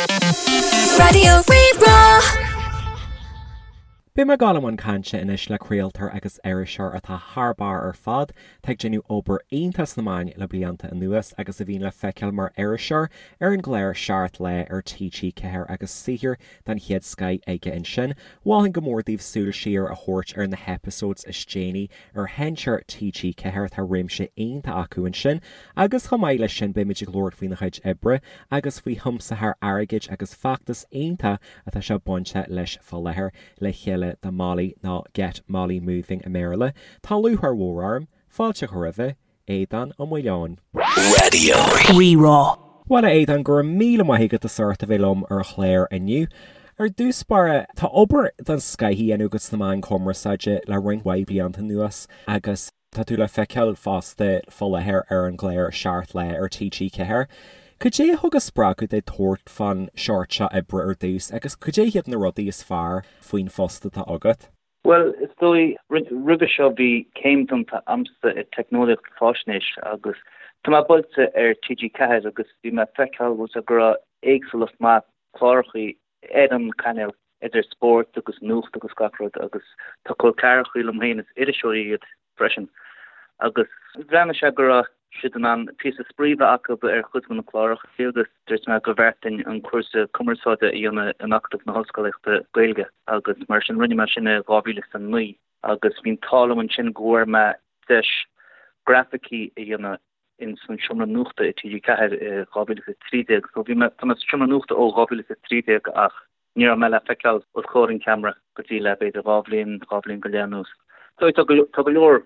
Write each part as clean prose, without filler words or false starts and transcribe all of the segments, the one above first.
Raidió Rí-Rá. Beidh mé ag dul i mbun cainte anois le craoltóir agus iriseoir atá thar barr ar fad, atá ag déanamh obair iontach sna meáin le blianta anuas agus a bhíonn le feiceáil mar iriseoir ar an gclár Seacht Lá ar TG4 agus saothar den chéad scoith aige ansin. Mholfainn go mór daoibh súil siar a thabhairt ar na heipeasóids is déanaí ar sheinnteoir TG4, tá réimse iontach acu ansin agus chomh maith leis sin beimid ag labhairt faoina chuid oibre agus faoi thiomsaitheoir airgid agus feachtas iontach atá sé bainte leis fá láthair, Le Chéile do Molly nó Get Molly Moving i mBéarla. Tá lúcháir mhór orm fáilte a chur roimhe, Aodhán Ó Maoileoin. Raidió Rí-Rá. Bhuel a Aodháin, go raibh míle maith agat as ucht a bheith liom ar an chlár inniu. Ar dtús báire, tá obair den scoith á dhéanamh agat sna meáin chumarsáide le roinnt mhaith blianta anuas agus tá tú le feiceáil fosta fá láthair ar an gclár Seacht Lá ar TG4. Cad é a thug an spreagadh duit tabhairt fán seort seo oibre ar dtús agus cad é hiad na rudaí is fearr faoin phost atá agat? Bhuel, is dóigh, roimhe seo bhí céim déanta a'msa i Teicneolaíocht Faisnéis agus tá mé buailte ar TG4 agus bhí mé ag feiceáil bhfuil sé go raibh éagsúlacht maith clárachaí ar an cainéal idir spórt agus nuacht agus gach rud agus tá col ceathrachaí liom féin is iriseoirí iad freisin agus bhreathnaigh sé go raibh siad in ann píosa spraoi bheith acu ar chuid de na cláracha agus dúirt mé go bhfearr dúinn an cúrsa cumarsáide a dhéanamh in Acadamh na hOllscolaíochta Gaeilge agus mar sin rinne mé sin i 2009 agus bhí an t-ádh liom ansin go bhfuair mé deis grafaicí a dhéanamh in san seomra nuachta i TG4 i 2013 so bhí mé tá mé sa seomra nuachta ó 2013 ach Ní raibh mé le feiceáil os comhair an cheamara go dtí le b'fhéidir 2 bhliain, 2 bhliain go leith anuas. So tá go tá go leor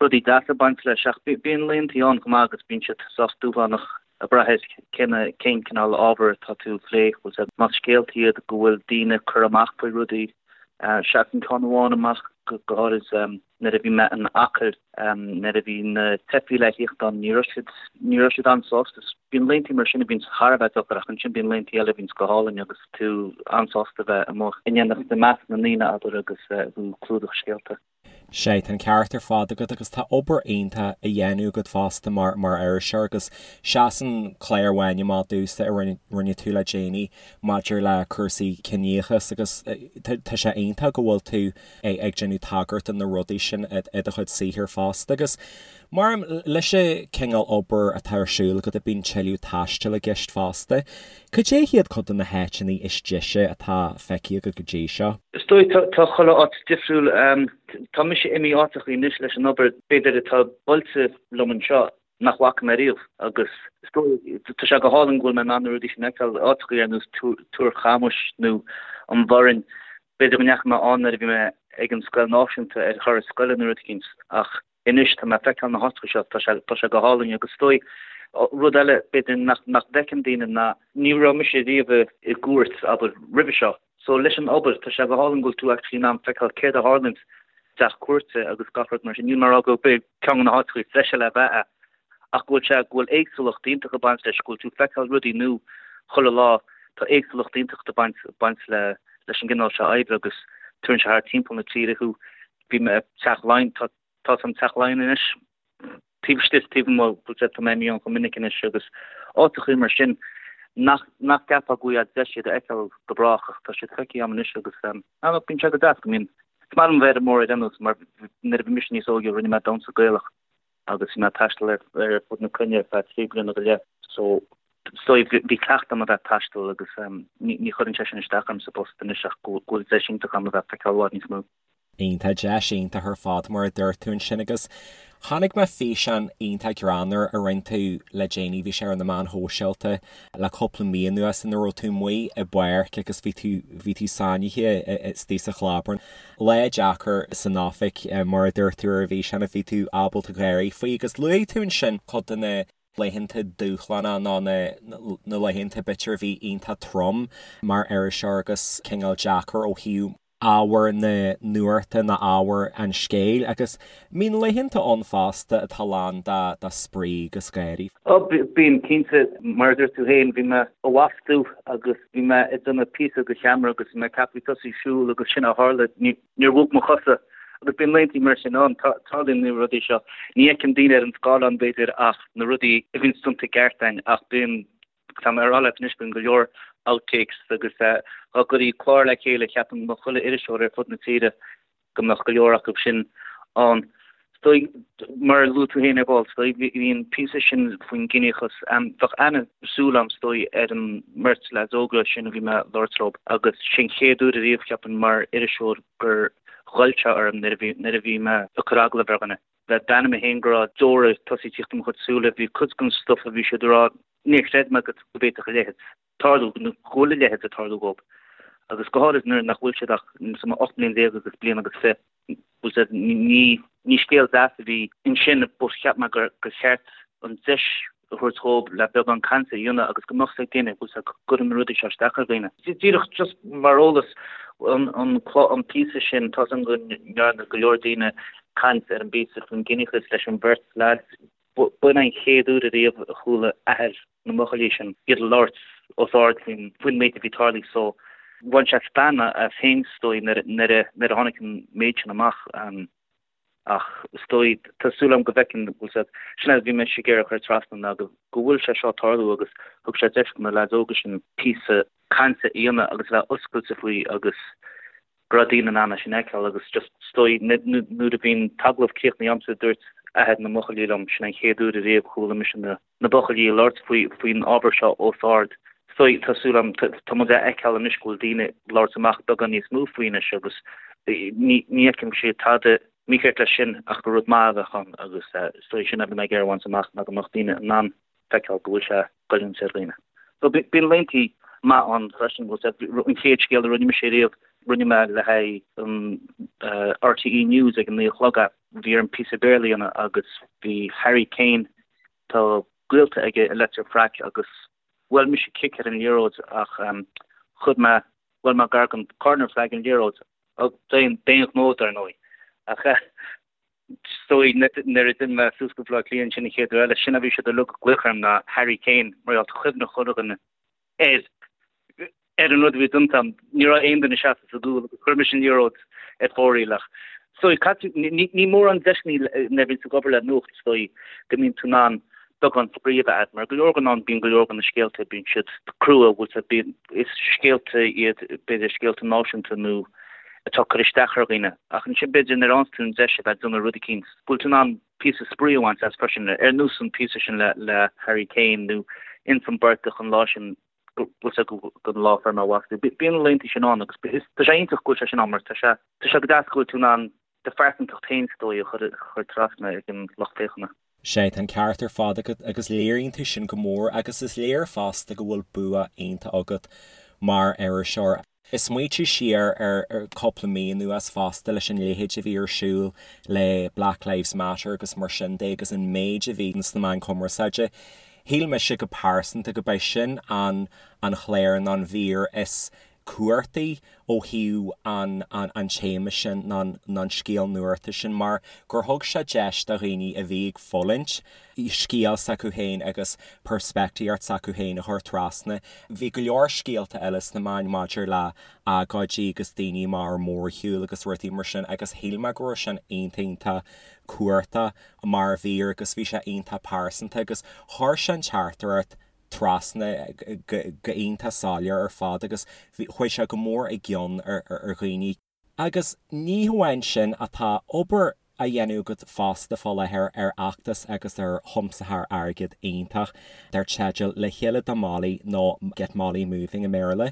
rudaí deasa ag baint leis ach bíonn laethanta ann chomh maith agus bíonn siad sách dúshlánach ag brath ar cén cén cineál ábhar atá tú ag plé. Bhfuil sé más scéalta iad go bhfuil daoine ag cur amach faoi rudaí. Seasann ceann amháin amach go háirid. Nuair a bhí mé in Acaill, nuair a bhí na teifigh le thíocht ann, ní raibh siad, ní raibh siad an-sásta. Bíonn laethanta mar sin a bhíonns thar a bheith deacair ach ansin bíonn laethanta eile a bhíonns go hálainn agus tú an-sásta bheith amuigh in éineacht i measc na ndaoine, abair, agus tú ag clúdach scéalta. Sea, tá an ceart ar fad agat agus tá obair iontach á dhéanamh agat fosta mar mar iriseoir agus seasann clár amháin amach domhsa a rinne rinne tú le déanaí maidir le cúrsaí ciníochas agus tá sé iontach go bhfuil tú ag déanamh tagairt do na rudaí sin i do chuid saothair fosta. Agus mar leis an cineál obair atá ar siúl agat bíonn tuilleadh taistil i gceist fosta. Cad é hiad cuid de na háiteanna is deise atá feicthe agat go dtí seo? Is dóigh tá chuile áit difriúil. Tá mise imithe áiteachaí anois leis an obair b'fhéidir atá buailte liom anseo nach bhfaca mé riamh agus is dóigh, tá sé go hálainn go bhfuil mé in ann na rudaí sin a fheiceáil, áiteachaí ar nós Túr Chamuis nó an Bhoirinn. B'fhéidir go ndeachaigh mé ann nuair a bhí mé ag an scoil náisiúnta ar thuras scoile nó rud eicínt ach anois tá mé ag feiceáil na háiteacha seo, tá sé, tá sé go hálainn agus is dóigh, rud eile b'fhéidir nach, nach bhfeiceann daoine ná ní raibh mise riamh i gcúirt, abair, roimhe seo. So leis an obair, tá sé go hálainn go bhfuil tú actually in ann feiceáil céard a tharlaíonn i dteach cúirte agus gach rud mar sin. Níl mé ag rá gurb é ceann de na háiteacha is deise le bheith é ach go bhfuil sé, go bhfuil éagsúlacht iontach ag baint leis, go bhfuil tú ag feiceáil rudaí nua chuile lá, tá éagsúlacht iontach ag baint, baint le, leis an gcineál seo oibre agus tugann sé thart timpeall na tíre thú. Bhí mé i Teach Laighean, tá, tá san Teach Laighean anois, taobh istigh is taobh amuigh, bhfuil sé, tá mé imithe ann chomh minic anois agus áiteachaí mar sin nach, nach gceapfá go bhfaighfeá deis iad a fheiceáil go brách ach tá siad feicthe agam anois agus ah look, bíonn sé go deas go mbíonn, is maith liom bheith ar an mbóthar ar aon nós mar nuair a bhí mise níos óige rinne mé damhsa Gaelach agus bhí mé ag taisteal ar ar fud na cruinne ar feadh 3 bliana go leith so so bhí cleachtadh agam a bheith ag taisteal agus ní ní chuireann sé sin isteach orm sa bpost anois ach go bhfuil deis iontach agam a bheith ag feiceáil i bhfad níos mó. Iontach, deis iontach ar fad mar a dúirt tú ansin agus chonaic mé físeán iontach greannmhar a rinne tú le déanaí, bhí sé ar na meáin shóisialta le cúpla mí anuas ina raibh tú amuigh i bpáirc agus bhí tú bhí tú sáinnithe istigh sa chlábar. Lá deacair san oifig mar a dúirt tú ar an bhfíseán a bhí tú ábalta gáirí faoi agus luaigh tú ansin cuid de na laethanta dúshlánacha nó na laethanta b'fhéidir a bhí iontach trom mar iriseoir agus cineál deacair ó thaobh ábhar na nuachta nó ábhar an scéil agus bíonn laethanta ann fosta atá lán de spraoi agus gáirí. Ó, bíonn, cinnte. Mar a dúirt tú féin, bhí mé i bhfostú agus bhí mé ag déanamh píosa do cheamara agus bhí mé ag ceapadh tosaí ag siúl agus sin a tharla. Níor bhog mo chosa agus bíonn laethanta mar sin ann. Tarlaíonn na rudaí seo. Ní fheiceann daoine ar an scáileán, b'fhéidir, ach na rudaí a bhíonn déanta i gceart againn ach bíonn. Tá mé ag rá leat anois bíonn go leor outtakes agus dá gcuirfí clár le chéile cheapfainn go mbeadh chuile iriseoir ar fud na tíre go mbeadh go leor acu sin ann. Is dóigh, mar a luaigh tú féin ar ball, is dóigh, bhí an píosa sin faoin gciníochas, bheadh ana-súil agam, is dóigh, ar an mbeirt leaids óga sin a bhí mé ag labhairt leo agus sé an chéad uair ariamh, cheapfainn, mar iriseoir gur ghoill sé orm nuair a bhí, nuair a bhí mé ag cur agallamh ar dhuine. Bheith d'ainm mé féin go raibh deora ag tosaí tíocht i mo chuid súile, bhí cuid den stuif a bhí siad a rá, níor chreid mé go bhféadfadh a leithéid. tarlú, nó go bhfuil a leithéid ag tarlú dhóibh, agus go háirid nuair nach bhfuil siad ach 18 mbliain agus bliain agus 20. Bhfuil siad, ní, ní scéal deas a bhí ansin but cheap mé gur, gur cheart an deis a thabhairt dhóibh le beagán cainte a dhéanamh agus go mbeadh 's ag daoine, bhfuil 's go gcuireann na rudaí seo isteach ar dhaoine. Díreach just mar eolas, an, an, an píosa sin, tá 's agam go ndearna go leor daoine caint ar an bpíosa faoin gciníochas leis an bheirt leaids, B'in an chéad uair ariamh a chuala athair na mbuachaillí sin iad ag labhairt os ard faoin faoin méid a bhí tarlaithe so bhain sé stangadh as féin is dóigh nuair nuair a nuair a tháinig an méid sin amach ach is dóigh tá súil agam go bhfeiceann bhfuil siad sin é a bhí mise ag iarraidh a chur trasna ná go go bhfuil sé seo ag tarlú agus thug sé deis do na leaids óga sin píosa cainte a dhéanamh agus a bheith oscailte faoi agus go raibh daoine in ann é sin a fheiceáil agus just is dóigh nuair a bhí an t-agallamh críochnaithe agamsa dúirt athair na mbuachaillí liom sin an chéad uair ariamh a chuala mise na na buachaillí ag labhairt faoi faoin ábhar seo os ard. Is dóigh tá súil agam tá muid a fheiceáil anois go bhfuil daoine ag labhairt amach beagán níos mó faoi anois agus ní ní fheicim sé tada mícheart leis sin ach gur rud maith a bheadh ann agus is dóigh sin a bhí mé ag iarraidh a bhaint amach ná go mbeadh daoine in ann feiceáil go bhfuil sé goilliúint ar dhaoine. So bíonn laethanta maith ann freisin, bhfuil sé, an chéad scéal a rinne mise riamh, rinne mé le haghaidh an RTÉ News ag an 9 a chlog é, bhí orm píosa Béarla a dhéanamh agus bhí Harry Kane, tá gaolta aige i Leitir Fraic agus bhuail mise cic ar an liathróid ach chuir mé, bhuail mé gar don corner flag an liathróid, d'aon ghnó dar ndóigh, ach Is dóigh nuair a d'imigh mé suas go Baile Átha Cliath ansin an chéad uair eile, sin a bhí siad uilig ag glaoch orm ná Harry Kane mar gheall tá cuimhne chuile dhuine air ar an rud a bhí déanta agam. Ní raibh aon duine seasta sa gcúl agus chuir mise an liathróid ar fóraoil ach is dóigh caite ní mórán deiseanna nuair a bhíonn tú ag obair le nuacht is dóigh go mbíonn tú in ann beagán spraoi a bheith agat mar go leor den am bíonn go leor de na scéalta bíonn siad crua bhfuil siad bíonn is scéalta iad b'fhéidir scéalta náisiúnta nó atá ag cur isteach ar dhaoine. Ach ansin b'fhéidir nuair a fhaigheanns tú an deis a bheith ag déanamh rud eicínt, go bhfuil tú in ann píosa spraoi a bhaint as freisin, ar nós an píosa sin le le Harry Kane nó ins an bportach an lá sin go bhfuil sé go lá fuair mé bás. Bíonn na laethanta sin ann agus tá sé iontach go bhfuil sé sin ann mar tá sé tá sé go deas go bhfuil tú in ann do phearsantacht féin is dóigh a chur trasna ag an lucht féachana. Sea, tá an ceart ar fad agat agus léiríonn tú sin go mór agus is léir fosta go bhfuil bua iontach agat mar iriseoir. Ag smaoitiú siar ar cúpla mí anuas fosta leis an leithéid a bhí ar siúl le Black Lives Matter agus mar sin de agus an méid a bhí sna meáin chumarsáide, shíl mise go pearsanta go b'é sin an an chlár nó an mhír is cuartaí ó thaobh an an téama sin nó an scéal nuachta sin mar gur thug sé deis do dhaoine a bhí ag fulaingt scéal s'acu féin agus peirspictíocht s'acu féin a chur trasna. Bhí go leor scéalta eile sna meáin maidir le agóidí agus daoine amach ar mórshiúl agus rudaí mar sin agus shíl mé go raibh sin iontach iontach cuartach mar mhír agus bhí sé iontach pearsanta agus chuir sé an teachtaireacht trasna go iontach soiléir ar fad agus chuaigh sé go mór i gcion ar dhaoine. Agus ní hamháin sin ach tá obair á dhéanamh agat fosta fá láthair ar fheachtas agus ar thiomsaitheoir airgid iontach dar teideal Le Chéile do Molly nó Get Molly Moving i mBéarla.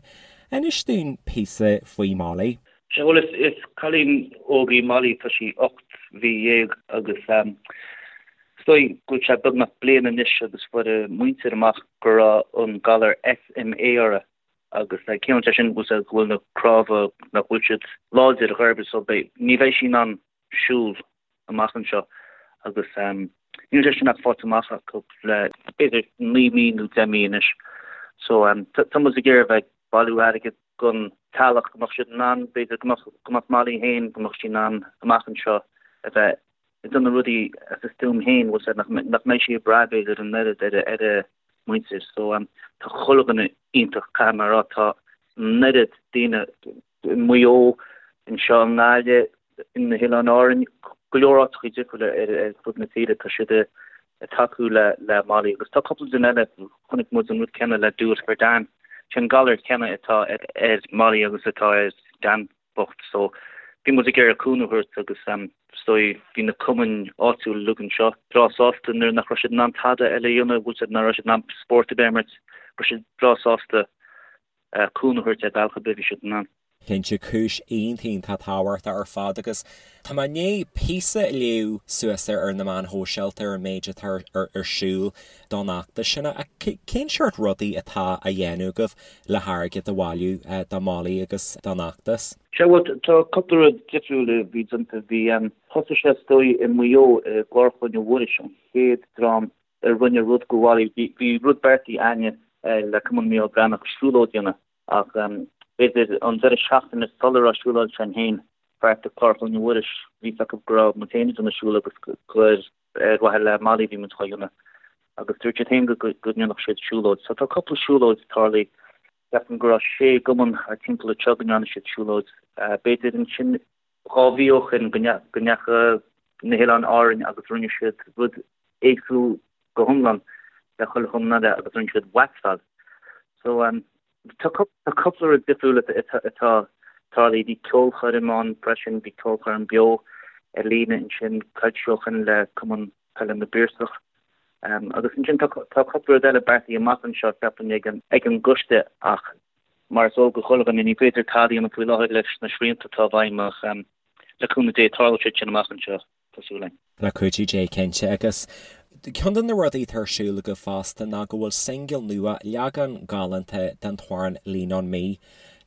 Inis dúinn píosa faoi Molly. Sea, bhuel is cailín óg í Molly, tá sí 18 mhí agus Is dóigh go bhfuil sé beagnach bliain anois agus fuair a muintir amach go raibh an galar SMA uirthi agus ciallaíonn sé sin go bhfuil na cnámha nach bhfuil siad láidir ar chor ar bith so beidh, ní bheidh sí in ann siúl amach anseo agus níl sé sin ach faighte amach acu le b'fhéidir 9 mí nó 10 mí anois so tá muid ag iarraidh a bheith ag bailiú airgid don teaghlach go mbeadh siad in ann b'fhéidir go mbeadh go mbeadh Molly féin go mbeadh sí in ann amach anseo a bheith ag déanamh rudaí as a stuaim féin, bhfuil 's a'd, nach mbeidh sí ag brath b'fhéidir an oiread ar ar a muintir. So tá chuile dhuine iontach, caithfidh mé a rá, tá an oiread daoine i Maigh Eo, anseo i nGaillimh, na hOileáin Árainn, go leor áiteachaí difriúla ar fud na tíre, tá siad ag. Ag tacú le le Molly agus tá cúpla duine eile, chonaic muid an rud céanna le Do It For Dan. Sé an galar céanna atá ar Molly agus atá ar Dan bocht so bhí muid ag iarraidh cúnamh a thabhairt agus is dóigh bhí na cumainn áitiúil uilig anseo breá sásta nuair nach raibh siad in ann tada eile a dhéanamh, bhfuil siad nach raibh siad in ann spórt ar bith a imirt, raibh siad breá sásta cúnamh a thabhairt ar bhealach ar bith a bhí siad in ann. Cinnte, cúis iontach iontach tábhachtach ar fad agus tá mé i ndiaidh píosa a léamh suas ar na meáin shóisialta ar an méid atá ar siúl don fheachtas sin. Ach cén seort rudaí atá á dhéanamh agaibh le hairgead a bhailiú do Molly agus don fheachtas? Sea, bhuel, tá cúpla rud difriúil a bhí déanta. Bhí, thosaigh sé is dóigh i Maigh Eo i gClár Chloinne Mhuiris, an chéad dream a rinne rud do Mholly. Bhí rud beartaithe againne le Cumann Mícheál Breathnach siúlóid a dhéanamh Ach b'fhéidir an deireadh seachtaine sula raibh siúlóid sin féin beartaithe Clár Chloinne Mhuiris, bhí fhios acu go raibh muid féin ag déanamh siúl agus gur ar mhaithe le Molly a bhí muid dhá dhéanamh. Agus dúirt siad féin go ndéanfadh siad siúlóid. So tá cúpla siúlóid tarlaithe. Ceapaim go raibh sé gcumann thar timpeall anseo go ndearna siad siúlóid. B'fhéidir ansin 2 mhí ó shin go ndeachaigh na hOileáin Árainn agus rinne siad rud éagsúil go hiomlán le chuile chumann eile agus rinne siad waxáil. So tá cúpla rud difriúil atá tarlaithe. Bhí ceolchoirm ann freisin, bhí ceolchoirm beo ar líne ansin coicís ó shin le Cumann Peile na bPiarsach. Agus ansin tá cúpla rud eile beartaithe amach anseo ceapaim ag an gcoiste ach mar is eol do chuile dhuine ní féidir tada a dhéanamh faoi láthair leis na srianta atá i bhfeidhm ach le cúnamh Dé tarlóidh siad sin amach anseo, tá súil againn. Le cuidiú Dé cinnte. Agus ceann de na rudaí atá ar siúl agaibh fosta ná go bhfuil singil nua, leagan galánta den t-amhrán Lean On Me,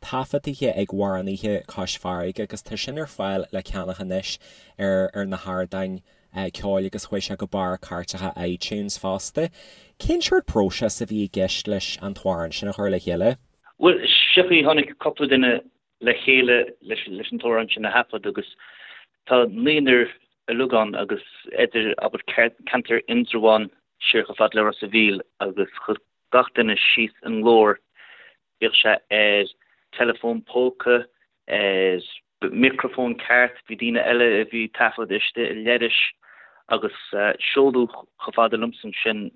taifeadtaithe ag amhránaithe Cois Farraige agus tá sin ar fáil le ceannach anois ar ar na hardáin ceoil agus chuaigh sé go barr cairteacha iTunes fosta. Cén seort próiseas a bhí i gceist leis an t-amhrán sin a chur le chéile? Bhuel, seo chaoi, tháinig cúpla duine le chéile leis an t-amhrán sin a thaifead agus tá naonúr uilig ann agus idir, abair, ceantar Indreabhán siar chomh fada le Ros a' Mhíl agus chuir gach duine síos a nglór, bíodh sé ar teileafón póca, ar micreafón ceart, bhí daoine eile a bhí ag taifead istigh i leithris agus seoladh chomh fada liomsa ansin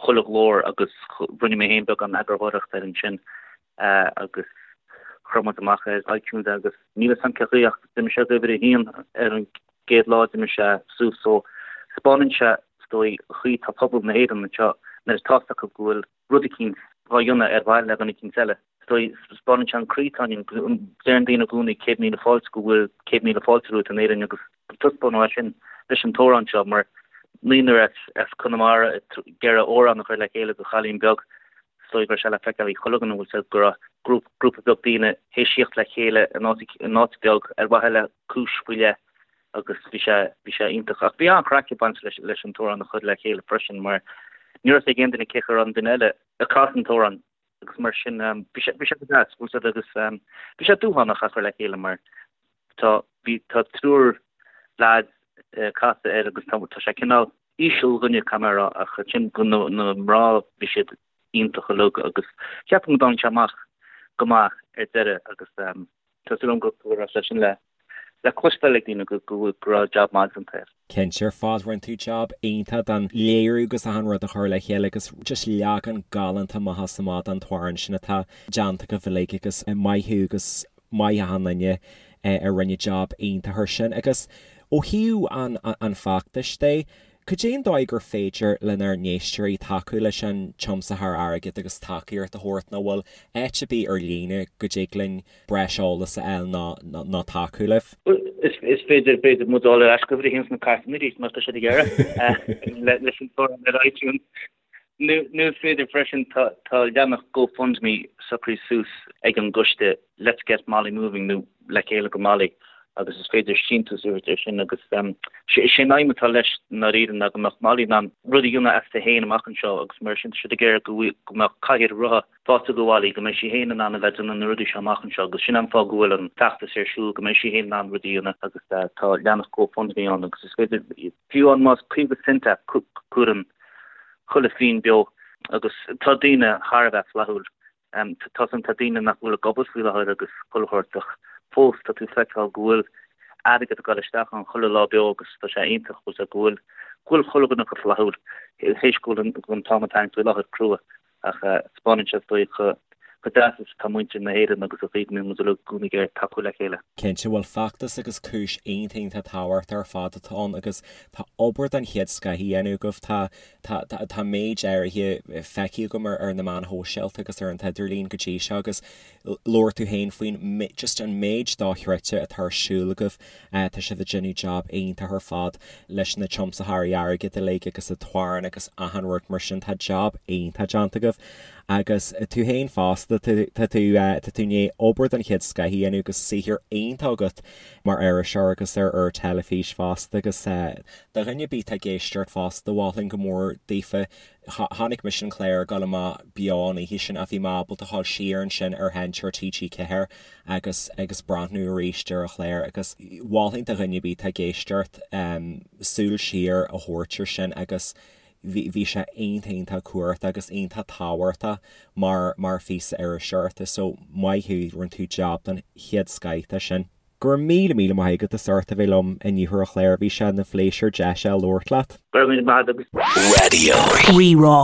chuile ghlór agus rinne mé féin beagán eagarthóireachta air ansin agus chuir muid amach ar iTunes é agus níl fhios a'm cén chaoi ach d'imigh sé go uimhir a haon ar an gcéad lá d'imigh sé suas so 'spáineann sé is dóigh an chaoi tá pobal na hÉireann anseo nuair atá fhios acu go bhfuil rud eicínt dhá dhéanamh ar mhaithe le dhuine eicínt eile. Is dóigh, 'spáineann sé an croí atá ionainn. Deireann daoine i gcónaí 100,000 fáilte go bhfuil 100,000 fáilte romhat in Éirinn agus taispeánadh é sin leis an t-amhrán seo mar naonúr as Conamara ag iarraidh amhrán a chur le chéile do chailín beag. Is dóigh go raibh sé le feiceáil ag chuile dhuine, bhfuil fhios a'd, go raibh grúpa beag daoine théis tíocht le chéile in áit beag ar mhaithe le cúis faoi leith. agus bhí sé, bhí sé iontach. Ach bhí an-chraic ag baint leis, leis an t-amhrán a chur le chéile freisin mar ní raibh fhios ag aon duine cé chaoi a raibh an duine eile ag casadh an t-amhrán agus mar sin bhí sé, bhí sé go deas, bhfuil fhios a'd agus bhí sé dúshlánach a chur le chéile mar tá, bhí, tá triúr leaids ag casadh air agus tá, tá sé cineál íseal dhuine caithfidh mé a rá ach ansin go na, na mná bhí siad iontach uilig agus ceapaim go dtáinig sé amach go maith ar deireadh agus Tá súil agam go raibh sé sin le cloisteáil ag daoine go raibh jab maith déanta air. Cinnte ar fad, rinne tú jab iontach den léiriú agus achan rud a chur le chéile agus just leagan galánta amach is amach den t-amhrán sin atá déanta agaibh uilig agus maith thú agus maith achan duine a rinne jab iontach air sin. Agus ó thaobh an feachtais de, Cad é an dóigh gur féidir lenár n-éisteoirí tacú leis an tiomsaitheoir airgid agus tacaíocht a thabhairt nó bhfuil áit ar bith ar líne go dtig linn breis eolais a fháil nó nó tacú libh? Is féidir, b'fhéidir, muid a fháil ar ais go uimhir a haon sna cairteanna arís má tá siad ag iarraidh leis an t-amhrán ar iTunes. Nó is féidir freisin, tá leathanach GoFundMe socraithe suas ag an gcoiste Let's Get Molly Moving nó Le Chéile go Molly agus is féidir síntiús a thabhairt air sin agus sé an aidhm atá leis i ndáiríre ná go mbeadh Molly in ann rud a dhéanamh aisti féin amach anseo agus mar sin tá siad ag iarraidh go go mbeadh cathaoir rotha faighte do Mholly, go mbeidh sí féin in ann a bheith ag déanamh na rudaí seo amach anseo agus sin an fáth go bhfuil an feachtas ar siúl, go mbeidh sí féin in ann rudaí a dhéanamh agus tá leathanach GoFundMe ann agus is féidir fiú amháin más 50 cent é cuireann chuile phingin beo agus tá daoine thar a bheith flaithiúil. Tá san, tá daoine nach bhfuil ag obair faoi láthair agus chuile shórt ach fós tá tú ag feiceáil go bhfuil airgead ag dul isteach ann chuile lá beo agus tá sé iontach bhfuil go bhfuil. Go bhfuil chuile dhuine chomh flaithiúil théis go bhfuil an t-am atá ann faoi láthair crua ach 'spáineann sé is dóigh chomh deas is atá muintir na hÉireann agus an chaoi go mbíonn muid uilig i gcónaí ag iarraidh tacú le chéile. Cinnte, bhuel feachtas agus cúis iontach iontach tábhachtach ar fad atá ann agus tá obair den chéad scoth á dhéanamh agaibh. Tá tá tá méid áirithe feicthe agam ar ar na meáin shóisialta agus ar an t-idirlíon go dtí seo agus labhair tú féin faoin just an méid dochreidte atá ar siúl agaibh. Tá sibh ag déanamh job iontach ar fad leis na tiomsaitheoirí airgid uilig agus an t-amhrán agus achan rud mar sin. Tá job iontach déanta agaibh agus tú féin fosta, tá tú tá tú i ndiaidh obair den chéad scoth a dhéanamh agus saothar iontach agat mar iriseoir agus ar ar teilifís fosta agus do dhuine ar bith atá ag éisteacht fosta, mholfainn go mór daofa Chonaic mise an clár ag dul amach beo an oíche sin ach bhí mé ábalta dhul siar ansin ar sheinnteoir TG4 agus agus breathnú arís ar an chlár agus mholfainn do dhuine ar bith atá ag éisteacht súil siar a thabhairt ar sin agus bhí bhí sé iontach iontach cumhachtach agus iontach tábhachtach mar mar phíosa iriseoireachta so maith thú, rinne tú jab den chéad scoith de sin. Go raibh míle míle maith agat as ucht a bheith liom inniu ar an chlár, bhí sé ina phléisiúr deis a labhairt leat. Go raibh míle maith agat. Radio. Rí-Rá.